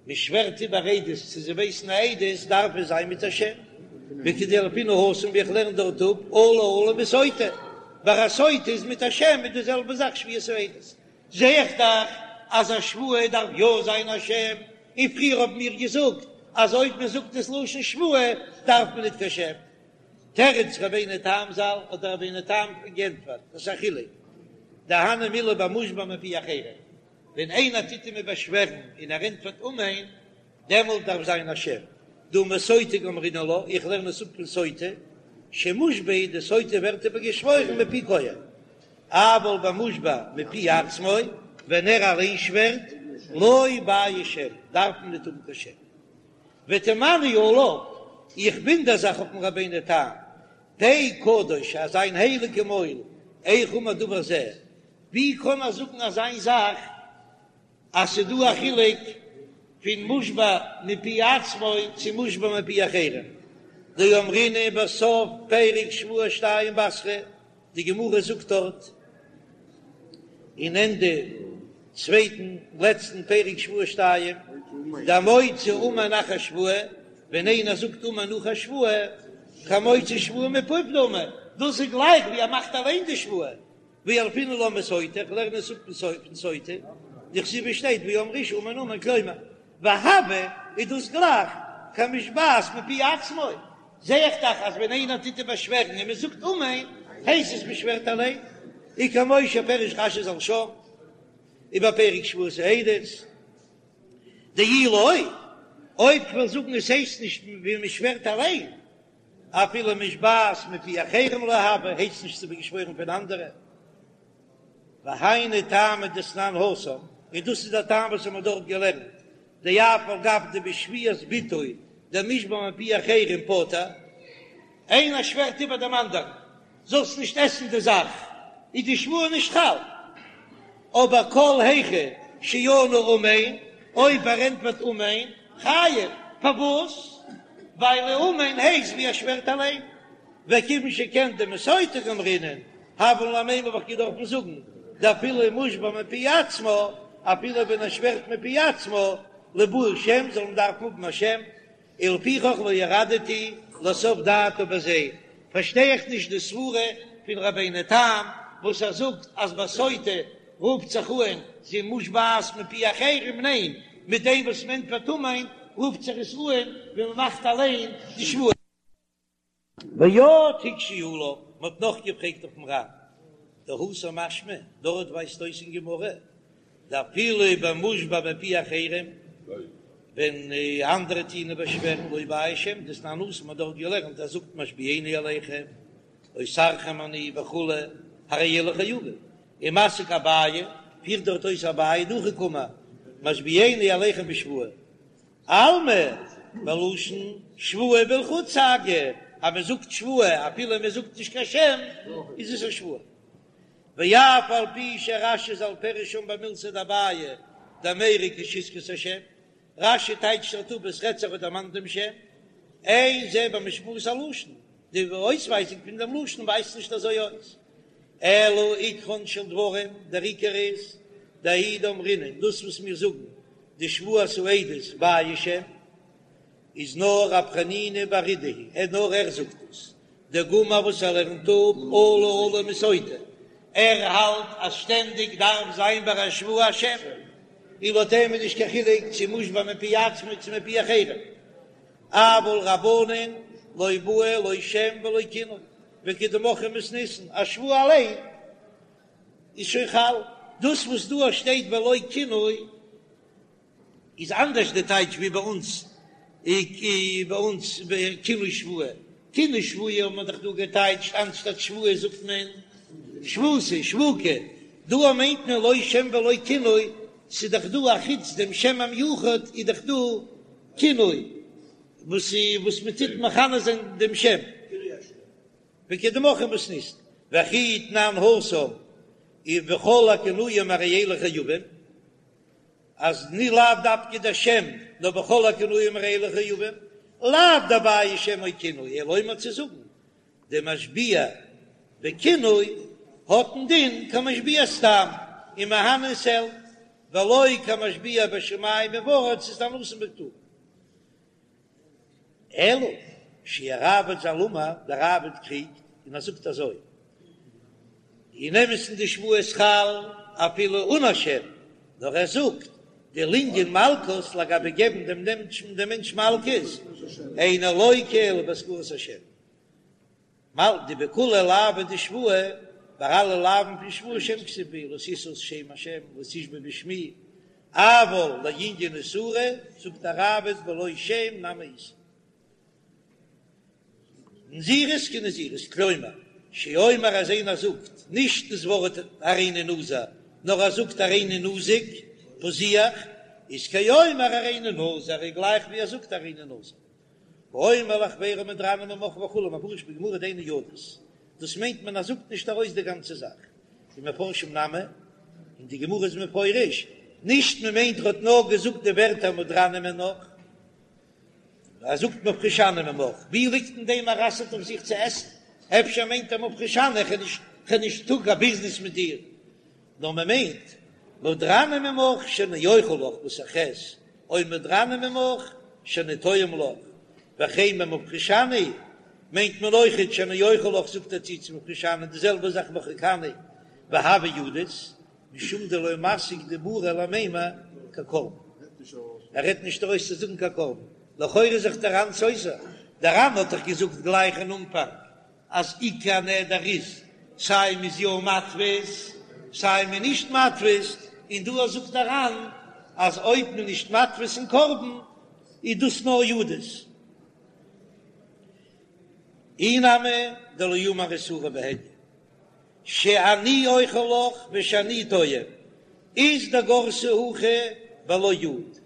מען שווערט איבער עדות צו זיי ווייסן א עדות דארף עס זיין מיט א שם, וכדילפינן התם ווי איך לערן דארט אפ עלה עלה מסוטה, ביי א סוטה איז מיט א שם איז די זעלבע זאך שבועת העדות. זע איך דאך אז א שבועה דארף יא זיין א שם, און פריער האבן מיר געזאגט אז אויב מען זאגט דאס לשון שבועה דארף מען ניט קיין שם. תירץ רבינו תם ז"ל האט דער רבינו תם גענטפערט, דאס איז א חילוק, דהני מילי במושבע מפי אחרים, ווען איינער טוט אים באשווערן און ער ענטפערט אמן, דעמאלט דארף זיין א שם. דהא מסוטה גמרינן לה, איך לערן עס אפ פון סוטה, שמושבע די סוטה ווערט איבער געשוואוירן מפי כהן. אבל במושבע מפי עצמו, ווען ער אליין שווערט, לא בעיא שם, דארף מען ניט האבן קיין שם. ותמהני עליו, איך וואונדער זיך אויפן רבינו תם, פה קדוש, אז זיין הייליגע מויל, איך אמר דבר זה, ווי קען ער זאגן אזיין זאך אז ס'דא א חילוק פון מושבע מפי עצמו צו מושבע מפי אחרים? דאמרינן בסוף פרק שבועה שתיים בתרא, די גמרא זאגט דארט אין ענדע צווייטן לעצטן פרק שבועה שתיים, דהמוציא אמן אחר שבועה, ווען איינער זאגט אמן נאך א שבועה, כמוציא שבועה מפיו דמי, דאס איז גלייך ווי ער מאכט אליין די שבועה, וילפינן לה מסוטה, איך לערן עס אפ פון סוטה, דכתיב שטייט ואמרה האשה אמן אמן כלומר, והוי איז דאס גלייך כמושבעת מפי עצמו, זע איך דאך אז ווען איינער טוט איבערשווערן און מען זאגט אמן, הייסט עס מען שווערט אליין, וכמו שפירש רש"י ז"ל שם, ובפרק שבועת העדות, דאי לא, אויב כ'וועל זאגן עס הייסט נישט ווי מען שווערט אליין, אפילו מושבעת מפי אחרים לא הוי, הייסט נישט ס'איז געשוואוירן פון אנדערע. והיינו טעמא דתנן התם, און דאס איז דער טעם וואס האמיר דארט געלערנט, דאף על גב דבשבועת בתו דמושבע מפי אחרים פטור, איינער שווערט איבער דעם אנדערן, זאלסט נישט עסן די זאך, איז די שבועה נישט חל. אבער כל היכא שענה אמן, אויב ער ענטפערט אמן, חייב, פארוואס? ווייל אמן הייסט ווי ער שווערט אליין. וכיוון שכן דמסוטה גמרינן, הוה לן למימר האב איך געדארפן זאגן, דאפילו מושבע מפי עצמו, אפילו ווען ער שווערט מפי עצמו, ליבעי שם זאל מען דארפן האבן א שם, ולפיכך לא ירדתי. לסוף דעתה בזה, פארשטיי איך נישט די סברה פון רבינו תם וואס ער זאגט אז ביי סוטה רופט זיך אן זי מושבעת מפי אחרים, ניין, מיט דעם וואס מען ענטפערט אמן רופט זיך עס אן ווען מען מאכט אליין די שבועה. ועוד הקשו עליו, מען האט נאך געפרעגט אויפן ר"ן, דהתם משמע, דארט ווייזט אויס אין גמרא, דאפילו במושבע מפי אחרים, ווען אנדערע טוען באשווערן לא בעי שם, דתנן התם מ'האט דארט געלערנט אז זאגט משביעני עליכם, אוסרכם אני וכו', הרי אלו חייבים, ומסיק אביי, פירט דארט אויס אביי דהכי קאמר, משביעני עליכם בשבועה. אלמא, בלשון שבועה בלחוד סגי, אז מען זאגט שבועה אפילו מען זאגט נישט קיין שם, איז עס א שבועה. ואף על פי שרש"י ז"ל פירש שם במילתיה דאביי דמיירי כשהזכיר את השם, רש"י טייטשט דארט אפ עס רעדט זיך האט דערמאנט דעם שם, אין זה במשמעות הלשון, די אויסווייזונג פון דעם לשון ווייזט נישט אזוי אויס, אלא עיקרן של דברים, דער עיקר איז, דהאי דאמרינן, דאס וואס מיר זאגן דשבועת העדות בעיא שם איז נאר רב חנינא בר אידי היא, ער נאר ער זאגט דאס, דגמר וואס ער לערנט אפ אלה אלה מסוטה, ער האלט אז שטענדיג דארף זיין ביי א שבועה א שם, און לויט אים איז נישט קיין חילוק צו מושבע מפי עצמו צו מפי אחרים, אבל רבנן לא בעו לא שם ולא כינוי, וכדמוכחי מתניתין, א שבועה אליין איז שוין חל. דאס וואס דא שטייט ולא כינוי איז אנדערש די טייטש ווי ביי אונז ביי אונז כינוי שבועה. כינוי שבועה האט מען דאך דא געטייטשט אנשטאט שבועה זאגט מען שבותא שבוקה. דא מיינט מען לא שם ולא כינוי, ס'איז דאך דא א חוץ דעם שם המיוחד איז דאך דא כינוי וואס וואס מ'טוט מכנה זיין דעם שם. וכדמוכחי מתניתין, וכי תנן התם ובכל הכינויים הרי אלו חייבים, אז ני לאו דווקא דער שם, נאר בכל הכינויים הרי אלו חייבים, לאו דבעי שם או כינוי, אלא לומר צו זאגן, דמשביע בכינוי האט א דין כמשביע סתם, ומהני ס'העלפט, ולא כמשביע בשמים ובארץ איז דתנן התם פטור. אלא שהראב"ד ז"ל אמר, דער ראב"ד קריגט און ער זאגט אזוי, אין אמת'ן די שבועה איז חל אפילו אן א שם, נאר ער זאגט דלענין מלקות לגבי געבן דעם מענטש מלקות, אינו לוקה אלא בהזכרת השם. מל דבכולהו לאוי דשבועה, ביי אלע לאווין פון שבועה שם כתיב בהו לא תשא שם השם לא תשבע בשמי, אבל לענין איסורא זאגט דער ראב"ד בלא שם נמי איתא. נזירות כנזירות, כלומר, שאומר אז איינער זאגט נישט דאס ווארט הריני נזיר, נאר ער זאגט הריני נזיק, פזיח, איז כאומר הריני נזיר, איז גלייך ווי ער זאגט הריני נזיר. האומר לחבירו מודרני ממך וכו' מפרש בגמרא דהיינו ידות, דאס מיינט מען אז זאגט נישט ארויס די גאנצע זאך, ומפרשים נמי, און די גמרא איז מפרש, נישט מען מיינט ער האט נאר געזאגט די ווערטער מודרני ממך, ער זאגט מפרישני ממך, ווי ליגט אין דעם ער אסר'ט אויף זיך צו עסן, אפשר מיינט ער מפרישני איך האב נישט טאג א ביזנעס מיט דיר, נאר מען מיינט מודרני ממך שאני אוכל לך וואס איך עס, או מודרני ממך שאני טועם לך, וכן במפרישני מיינט מען אויכעט שאני אוכל לך זאגט ער צו צו מפרישני די זעלבע זאך מרחיקני והוה ידות משום דלא מסיק דיבורא למימר כקרבן ער רעדט נישט ארויס צו זאגן קיין קרבן לכאורה איז זיך דער ר"ן סותר דער ר"ן האט דאך געזאגט גלייך אין אנפאנג אז עיקר נדר איז סיי מ'איז יא מתפיס סיי מ'איז נישט מתפיס, און דא זאגט דער ר"ן אז אויב מ'איז נישט מתפיס אין קרבן איז דאס נאר ידות. אי נמי דלא אמר איסורא בהדיא שאני אוכל לך ושאני טועם אית דגרסי הכי בלא יוד,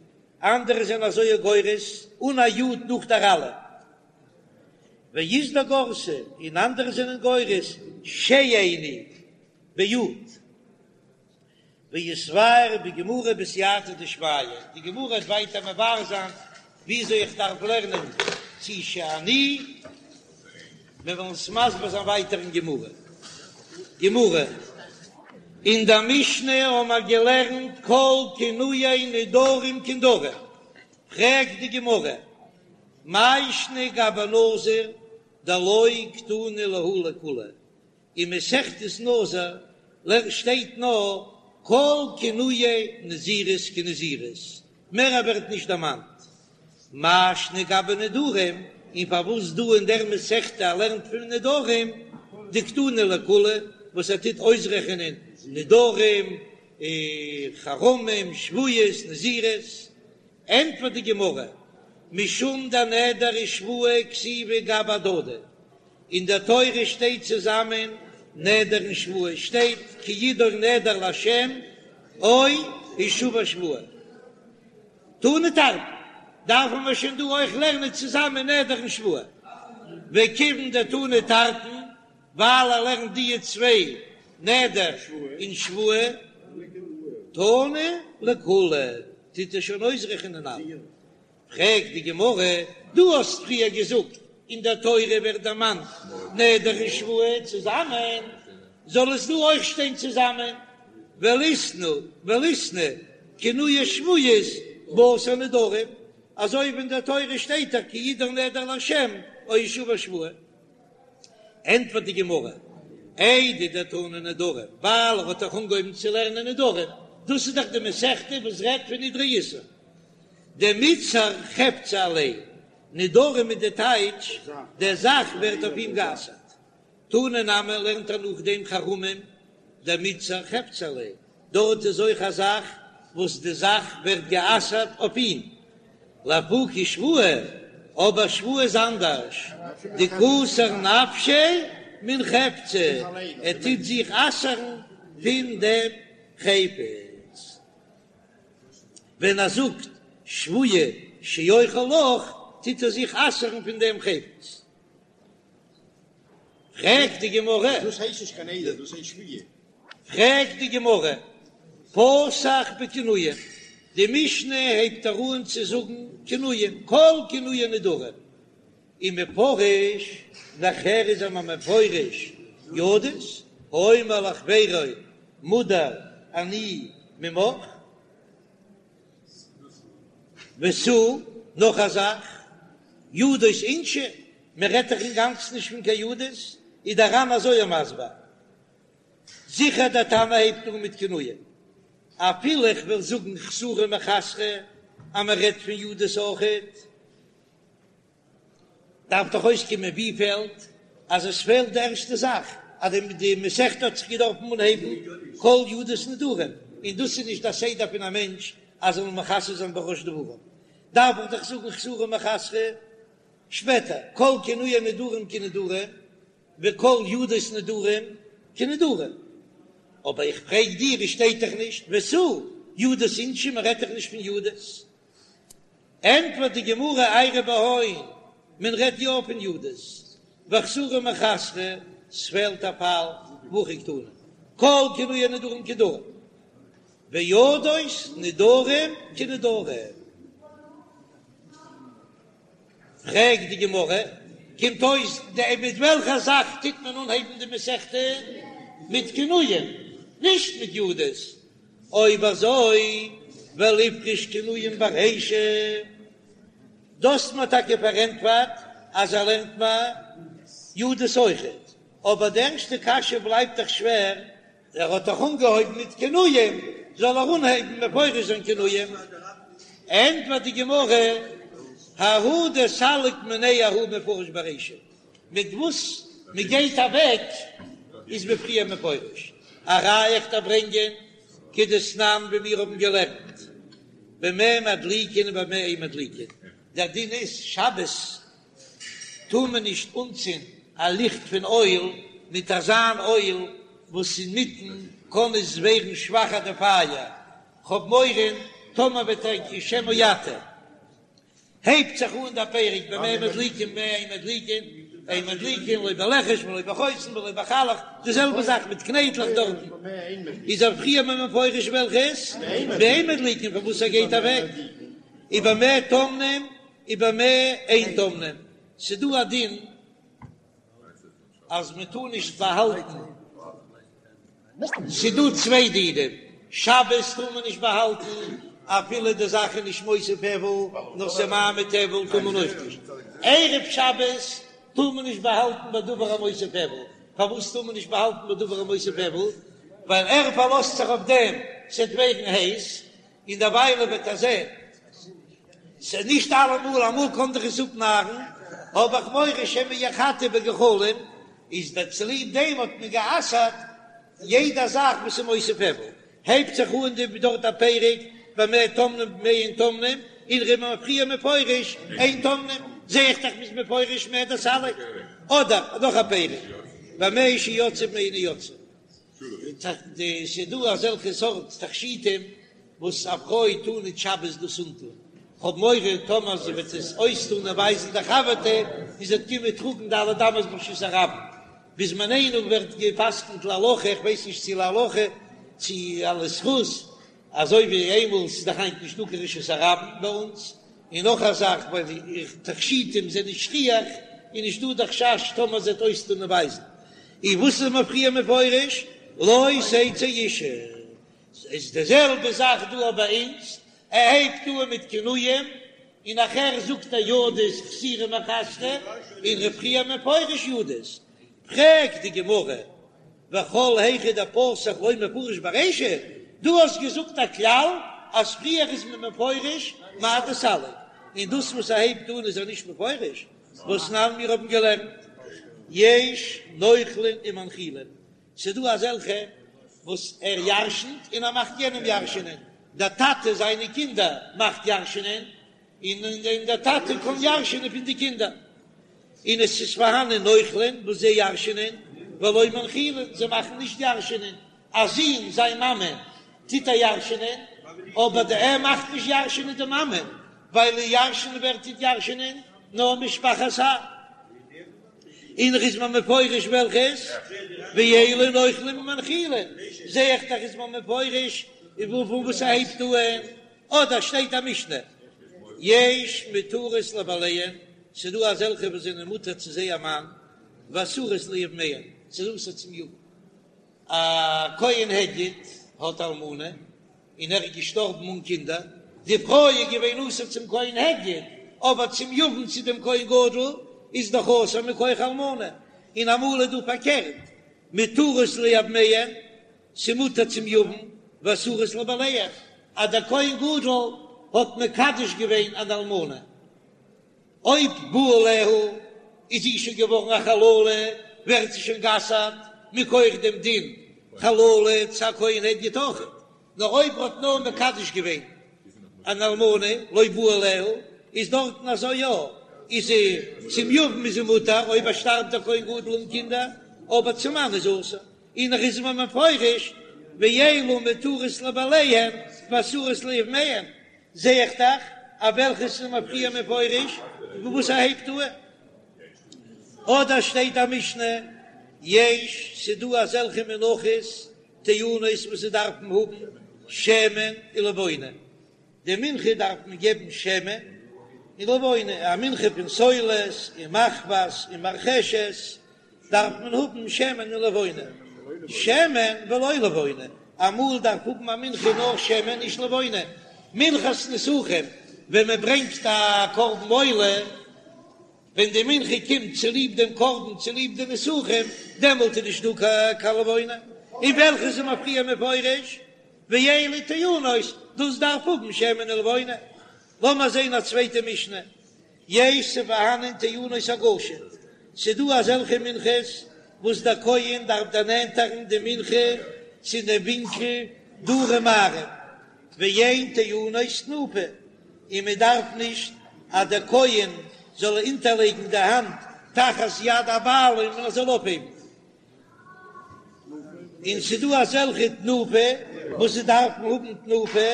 אנדערע זענען אזוי גורס אן א יוד נאך דער אלף. ואית דגרסי און אנדערע זענען גורס שאיני ביוד. ויתבאר בגמרא בסייעתא דשמיא, די גמרא וועט ווייטער מבאר זיין וויאזוי איך דארף לערנען צו שאני, מיר וועלן עס מסביר זיין ווייטער אין גמרא. גמרא, אין דער משנה האבן מיר געלערנט כל כינויי נדרים כנדרים, פרעגט די גמרא. מאי שנא גבי נזיר דלא קתני להו לכולהו, אין מסכת נזיר שטייט נאר כל כינויי נזירות כנזירות, מער ווערט נישט דערמאנט. מאי שנא גבי נדרים, און פארוואס דא אין דער מסכתא ער לערנט פון נדרים דקתני לכולהו, וואס ער טוט אויסרעכענען נדרים, חרמים, שבועות, נזירות, ענטפערט די גמרא, משום דנדר ושבועה כתיבי גבי הדדי, אין דער תורה שטייט צוזאמען נדר און שבועה, שטייט כי ידור נדר לה' או השבע שבועה. תני תרתין, דארפן מיר שוין דא אויך לערנען צוזאמען נדר און שבועה. וכיוון דתני תרתין, ווייל ער לערנט דיע צוויי נדר און שבועה, תני לכולהו, טוט ער שוין אויסרעכענען אלע. פרעגט די גמרא, דו האסט פריער געזאגט אין דער תורה ווערט דערמאנט נדר און שבועה צוזאמען, זאל עס דא אויך שטיין צוזאמען, וליתני וליתני כינויי שבועות בתר נדרים, אזוי ווי אין דער תורה שטייט דאך כי ידור נדר לה' או השבע שבועה. ענטפערט די גמרא, איידי דתני נדרים, ווייל ער האט דאך אנגעהויבן צו לערנען נדרים, דאס איז דאך די מסכתא וואס רעדט פון נדרי איסור, דמיתסר חפצא עליה, נדרים איז די טייטש, די זאך ווערט אויף אים גע'אסר'ט. תני נמי לערנט ער נאכדעם חרמים דמיתסר חפצא עליה, דארט איז אויך א זאך וואס די זאך ווערט גע'אסר'ט אויף אים. לאפוקי שבועה, אבער שבועה איז אנדערש, דקאסר נפשיה מן חפצא, ער טוט זיך אסר'ן פון דעם חפץ. ווען ער זאגט שבועה שאוכל לך, טוט ער זיך אסר'ן פון דעם חפץ. פרעגט די גמרא, דאס הייסט נישט קיין נדר, דאס הייסט שבועה. פרעגט די גמרא, פתח בכינויים, די משנה הייבט ער אן צו זאגן כינויים, כל כינויי נדרים, ומפרש, נאכהער איז ער מפרש ידות, האומר לחבירו מודר אני ממך, ותו, נאך א זאך, ידות אינשי, מען רעדט דאך אינגאנצן נישט פון קיין ידות, איז דער ר"ן אזוי מסביר, זיכער דער תנא הייבט אן מיט כינויים, אפילו איך וועל זאגן חסורי מחסרא אז מען רעדט פון ידות אויכעט, דארף דאך אויסקומען ווי פעלט אז עס פעלט די ערשטע זאך אז די מסכתא האט זיך געדארפן אנהייבן כל ידות נדרים, און דאס איז נישט א סדר פון א מענטש אז זאל מכסה זיין בראש דברים, דארף איך דאך זאגן חסורי מחסרא שפעטער כל כינויי נדרים כנדרים וכל ידות נדרים כנדרים, אבער איך פרעג דיר עס שטייט דאך נישט ותו ידות אינשי מען רעדט דאך נישט פון ידות. ענטפערט די גמרא איירי בהון, מען רעדט יא פון ידות, וחסורי מחסרא, ס'פעלט א פאל, והכי קתני, כל כינויי נדרים כנדרים, וידות נדרים כנדרים. פרעגט די גמרא, קומט אויס די מיט וועלכע זאך טוט מען אנהייבן די מסכתא? מיט כינויים, נישט מיט ידות, אויב אזוי וליפרוש כינויים ברישא, דאס האט מען טאקע פארענטפערט אז ער לערנט מיר ידות אויכעט, אבער די ערשטע קשיא בלייבט דאך שווער, ער האט דאך אנגעהויבן מיט כינויים, זאל ער אנהייבן מפרש זיין כינויים? ענטפערט די גמרא, ההוא דסליק מיניה ההוא מפרש ברישא, מיט וואס מען גייט אוועק איז מען פריער מפרש. א ראיה איך דארף ברענגען כדתנן ווי מיר האבן געלערנט במה מדליקין ובמה אין מדליקין, דער דין איז שבת טאר מען נישט אנצינדן א ליכט פון אויל מיט אזאן אויל וואס אינמיטן קען עס ווערן שוואכער די פייער, כ'האב מורא טאמער וועט ער שמא יטה. הייבט זיך אן דער פרק במה מדליקין במה אין מדליקין, אין מדליקין לא בלכש ולא בחוסן ולא בחלח, די זעלבע זאך מיט קנייטלעך דארטן, איז ער פריער מפרש וועלכעס באין מדליקין פון וואס ער גייט אוועק, ובמה טומנין ובמה אין טומנין, ס'דא א דין אז מען טאר נישט באהאלטן, ס'דא צוויי דינים, שבת טאר מען נישט באהאלטן. אפילו די זאך איז נישט מוסיף הבל, נאר ס'איז ממעיט הבל טאר מען אויך נישט. ערב שבת טאר מען נישט באהאלטן בדבר המוסיף הבל, פארוואס טאר מען נישט באהאלטן בדבר המוסיף הבל? ווייל ער פארלאזט זיך אויף דעם ס'עט ווערן הייס, און דערוויילע וועט ער זען ס'איז נישט אלעמאל, אמאל קען דאך עס אפנארן, האב איך מורא שמא יחתה בגחלים, איז דער צוליב דעם האט מען גע'אסר'ט יעדע זאך וואס איז מוסיף הבל, הייבט זיך אן די דארט א פרק במה טומנים במה אין טומנים, און ר'איז מען פריער מפרש אין טומנים, זע איך דאך מ'איז מפרש מהו דסליק, אדער נאך א פרק במה שיוצאה ובמה אינה יוצאה. ס'דא אזעלכע סארט תכשיטים וואס א פרוי טאר ניט שבת דאס אנטאן, כ'האב מורא טאמער זי וועט עס אויסטאן און ווייזן די חבר'טע און זי וועט קומען טראגן ד' אמות ברשות הרבים. בזמנינו ווערט גע'פסק'נט להלכה, איך ווייס נישט צו להלכה צו אלס זכות, אזוי ווי איינמאל ס'איז דאך היינט נישטא קיין רשות הרבים ביי אונז, און נאך א זאך ווייל די תכשיטים זענען שכיח איז נישטא די חשש טאמער זי וועט אויסטון און ווייזן. און וואס איז מען פריער מפרש לא תצא אשה, איז די זעלבע זאך דא ביי אונז, ער הייבט אן מיט כינויים און נאכער זאגט ער ידות חסורי מחסרא, און ר' פריער מפרש ידות, פרעגט די גמרא וכל היכא דפתח לא מפרש ברישא, דו האסט געזאגט א כלל אז פריער איז מען מפרש מאי דסליק, און דאס וואס ער הייבט אן איז ער נישט מפרש, והתנן מיר האבן געלערנט יש נוחלין ומנחילין, ס'דא אזעלכע וואס ער ירשנ'ט און ער מאכט יענעם ירש'נען, דער טאטע זיינע קינדער מאכט ירש'נען, און און דער טאטע קען ירש'נען פון די קינדער, און עס איז פארהאנען נוחלין וואס זיי ירש'נען, ולא מנחילין, זיי מאכן נישט ירש'נען, א זון זיין מאמע טוט ער ירש'נען, אבער די ער מאכט נישט ירש'נען די מאמע, ווייל ירש'נען ווער טוט ירש'נען? נאר משפחת האב. און איז מען מפרש וועלכעס? ואלו נוחלין ומנחילין, זע איך דאך איז מען מפרש פון וואס ער הייבט אן, אדער שטייט א משנה יש מותרות לבעליהן, ס'דא אזעלכע וואס זענען מותר צו זייער מאן, ואסורות ליבמיהן, ס'איז אסור צום יבם. א כהן הדיוט האט אלמנה און ער איז געשטארבן אן קינדער, די פרוי איז געווען אסור צום כהן הדיוט, אבער צום יבם צו דעם כהן גדול איז דאך אסור מכח אלמנה, און אמאל איז דא פארקערט, מותרות ליבמיהן, ס'מותר צום יבם, ואסורות לבעליהן, אז דער כהן גדול האט מקדש געווען אן אלמנה. אויב בא עליה איז זי שוין געווארן א חללה, ווערט זי שוין גע'אסר'ט מכח דעם דין חללה צו א כהן הדיוט אויכעט, נאר אויב ער האט נאר מקדש געווען אן אלמנה לא בא עליה, איז דארטן אזוי יא, איז זי צום יבם איז זי מותר אויב ער שטארבט דער כהן גדול אן קינדער, אבער צום מאן איז אסור, און נאך איז מען מפרש ואלו מותרות לבעליהן ואסורות ליבמיהן, זע איך דאך אז וועלכעס איז מען פריער מפרש און וואס ער הייבט אן. אדער שטייט א משנה, יש, ס'דא אזעלכע מנחות טעונות וואס זיי דארפן האבן שמן ולבונה, די מנחה דארף מען געבן שמן און לבונה, א מנחה פון סולת און מחבת און מרחשת דארף מען האבן שמן און לבונה, שמן ולא לבונה, אמאל דארף האבן א מנחה נאר שמן נישט לבונה, מנחת נסכים ווען מען ברענגט א קרבן עולה, ווען די מנחה קומט צוליב דעם קרבן צוליב די נסכים, דעמאלט איז נישט דא קיין לבונה, און וועלכע איז מען פריער מפרש, ואלו טעונות, דאס דארף האבן שמן ולבונה. לאמיר זען א צווייטע משנה, יש ס'פארהאנען טעונות הגשה, ס'דא אזעלכע מנחות וואס דער כהן דארף דערנענטערן די מנחה צו דעם ווינקל דרום מערב, ואין טעונות תנופה, און מען דארף נישט אז דער כהן זאל אונטערלייגן די האנט תחת יד הבעלים און ער זאל אויפהייבן. און ס'דא אזעלכע תנופה וואס זיי דארפן האבן תנופה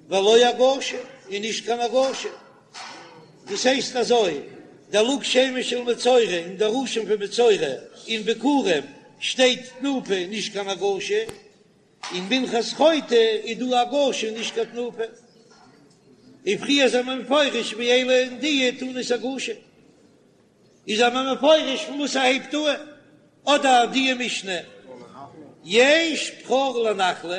ולא הגשה און נישט קיין הגשה. דאס הייסט אזוי, דער לוג שמן של מצורע און דער אשם פון מצורע אין ביכורים שטייט תנופה און נישט קיין הגשה, אין מנחת חוטא איז דא הגשה און נישט קיין תנופה. און פריער זענען מיר מפרש ואלו און די טעונות הגשה. איז מען מפרש פון וואס ער הייבט אן, אדער די משנה יש בכור לנחלה.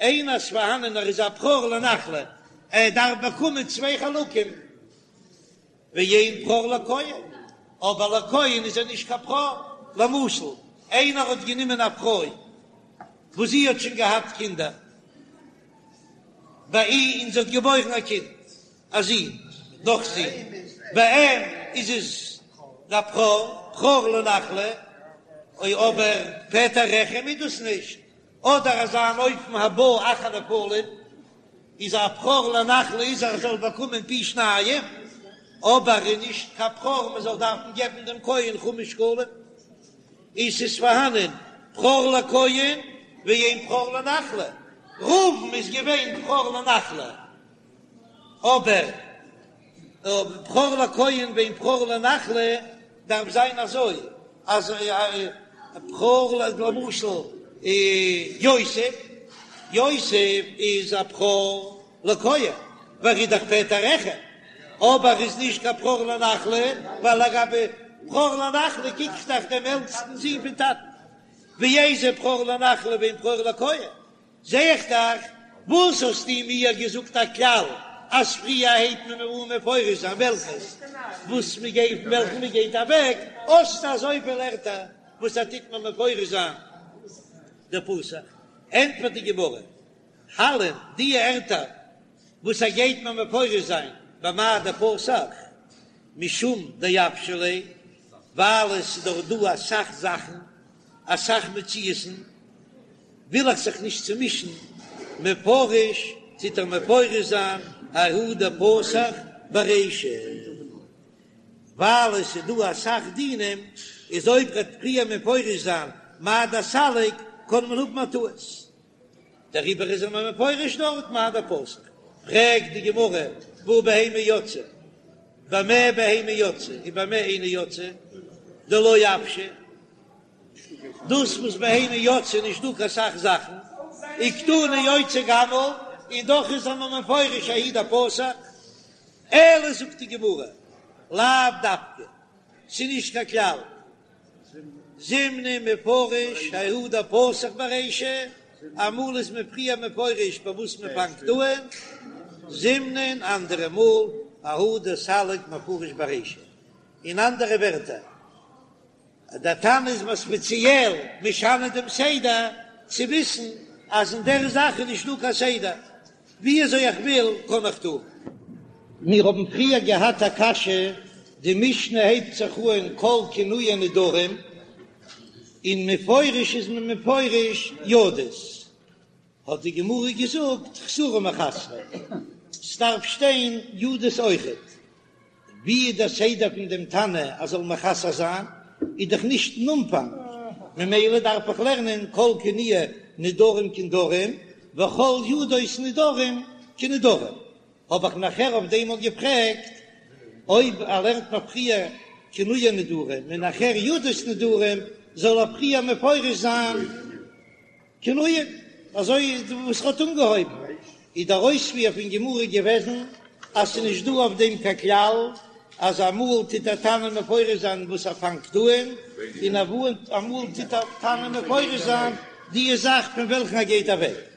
איינער איז פארהאנען ער איז א בכור לנחלה, ער דארף באקומען צוויי חלקים, ואין בכור לכהן, אבער לכהן איז ער נישט קיין בכור, למשל איינער האט גענומען א פרוי וואס זי האט שוין געהאט קינדער ביי אים און זי האט געבוירן א קינד א זון נאך זי, ביי אים איז עס א בכור, בכור לנחלה, אוי אבער פטר רחם איז דאס נישט, אדער אזא אן אופן הבא אחר נפלים איז א בכור לנחלה איז ער זאל באקומען פי שניים, אבער איז נישט קיין בכור מען זאל דארפן געבן דעם כהן חמש שקלים, איז ס'איז פארהאנען בכור לכהן ואין בכור לנחלה, ראובן איז געווען בכור לנחלה אבער בכור לכהן ואין בכור לנחלה דארף זיין אזוי אז בכור למשל יוסף, יוסף איז א בכור לכהן ווייל ער איז דאך פטר רחם, אבער איז נישט קיין בכור לנחלה ווייל לגבי בכור לנחלה קוק איך דאך דעם עלטסטן זון פון טאטן, ואיזהו בכור לנחלה ואין בכור לכהן. זע איך דאך, וואס האסטו מיר געזאגט א כלל אז פריער הייבט מען אן מפרש זיין וועלכעס וואס מען גייט פון וועלכן מען גייט אוועק, האסטו אזויפיל ערטער וואס ער טוט מיר מפרש זיין דפתח, ענטפערט די גמרא, הלין די ערטער וואס ער גייט מיר מפרש זיין במאי דפתח משום דאוושי ליה, ווייל עס איז דאך דא אסאך זאכן אסאך מציאות'ן. וויל איך זיך נישט צומישן, מפרש טוט ער מפרש זיין ההוא דפתח ברישא, ווייל עס איז דא אסאך דינים, איז אויב ר'עט פריער מפרש זיין מאי דסליק קען מען האבן א טעות, דעריבער איז ער מיר מפרש דארט מאי דפתח. פרעגט די גמרא והא בהמה יוצאה, במה בהמה יוצאה ובמה אינה יוצאה, דלא אוושא. דאס וואס בהמה יוצאה נישט דא קיין סאך זאכן, וקתני יוצא גמל, און דאך איז ער מיר מפרש ההוא דפתח, אלא זאגט די גמרא, לאו דווקא, ס'איז נישט קיין כלל, זימנין מפרש ההוא דפתח ברישא, אמאל איז מען פריער מפרש ביי וואס מען פאנגט אן, זימנין אנדערע מאל ההוא דסליק מפרש ברישא, אין אנדערע ווערטער, דער תנא איז מיר ספעציעל משנה דעם סדר, צו וויסן אז אין דער זאך איז נישט דא קיין סדר, ווי אזוי איך וויל קען איך טון. מיר האבן פריער געהאט א קשיא, די משנה הייבט זיך אן כל כינויי נדרים, און מפורש איז מען מפרש ידות, האט די גמרא געזאגט חסורי מחסרא, ס'דארף שטיין ידות אויכעט. ווי איז דער סדר פון דעם תנא אז זאל מחסר זיין, איז דאך נישט אין אנפאנג, ממילא דארף איך לערנען כל כינויי נדרים כנדרים וכל ידות נדרים כנדרים. האב איך נאכער אויף דעם מאל געפרעגט, אויב ער לערנט מיר פריער כינויי נדרים און נאכער ידות נדרים, זאל ער פריער מפרש זיין כינויים, אזוי וואס ער האט אנגעהויבן, איז דער אויספיר פון גמרא געוועזן אז ס'איז נישט דא אויף דעם קיין כלל, אז אמאל טוט דער תנא מפרש זיין וואס ער פאנגט אן, און אמאל טוט דער תנא מפרש זיין די זאך פון וועלכן ער גייט אוועק.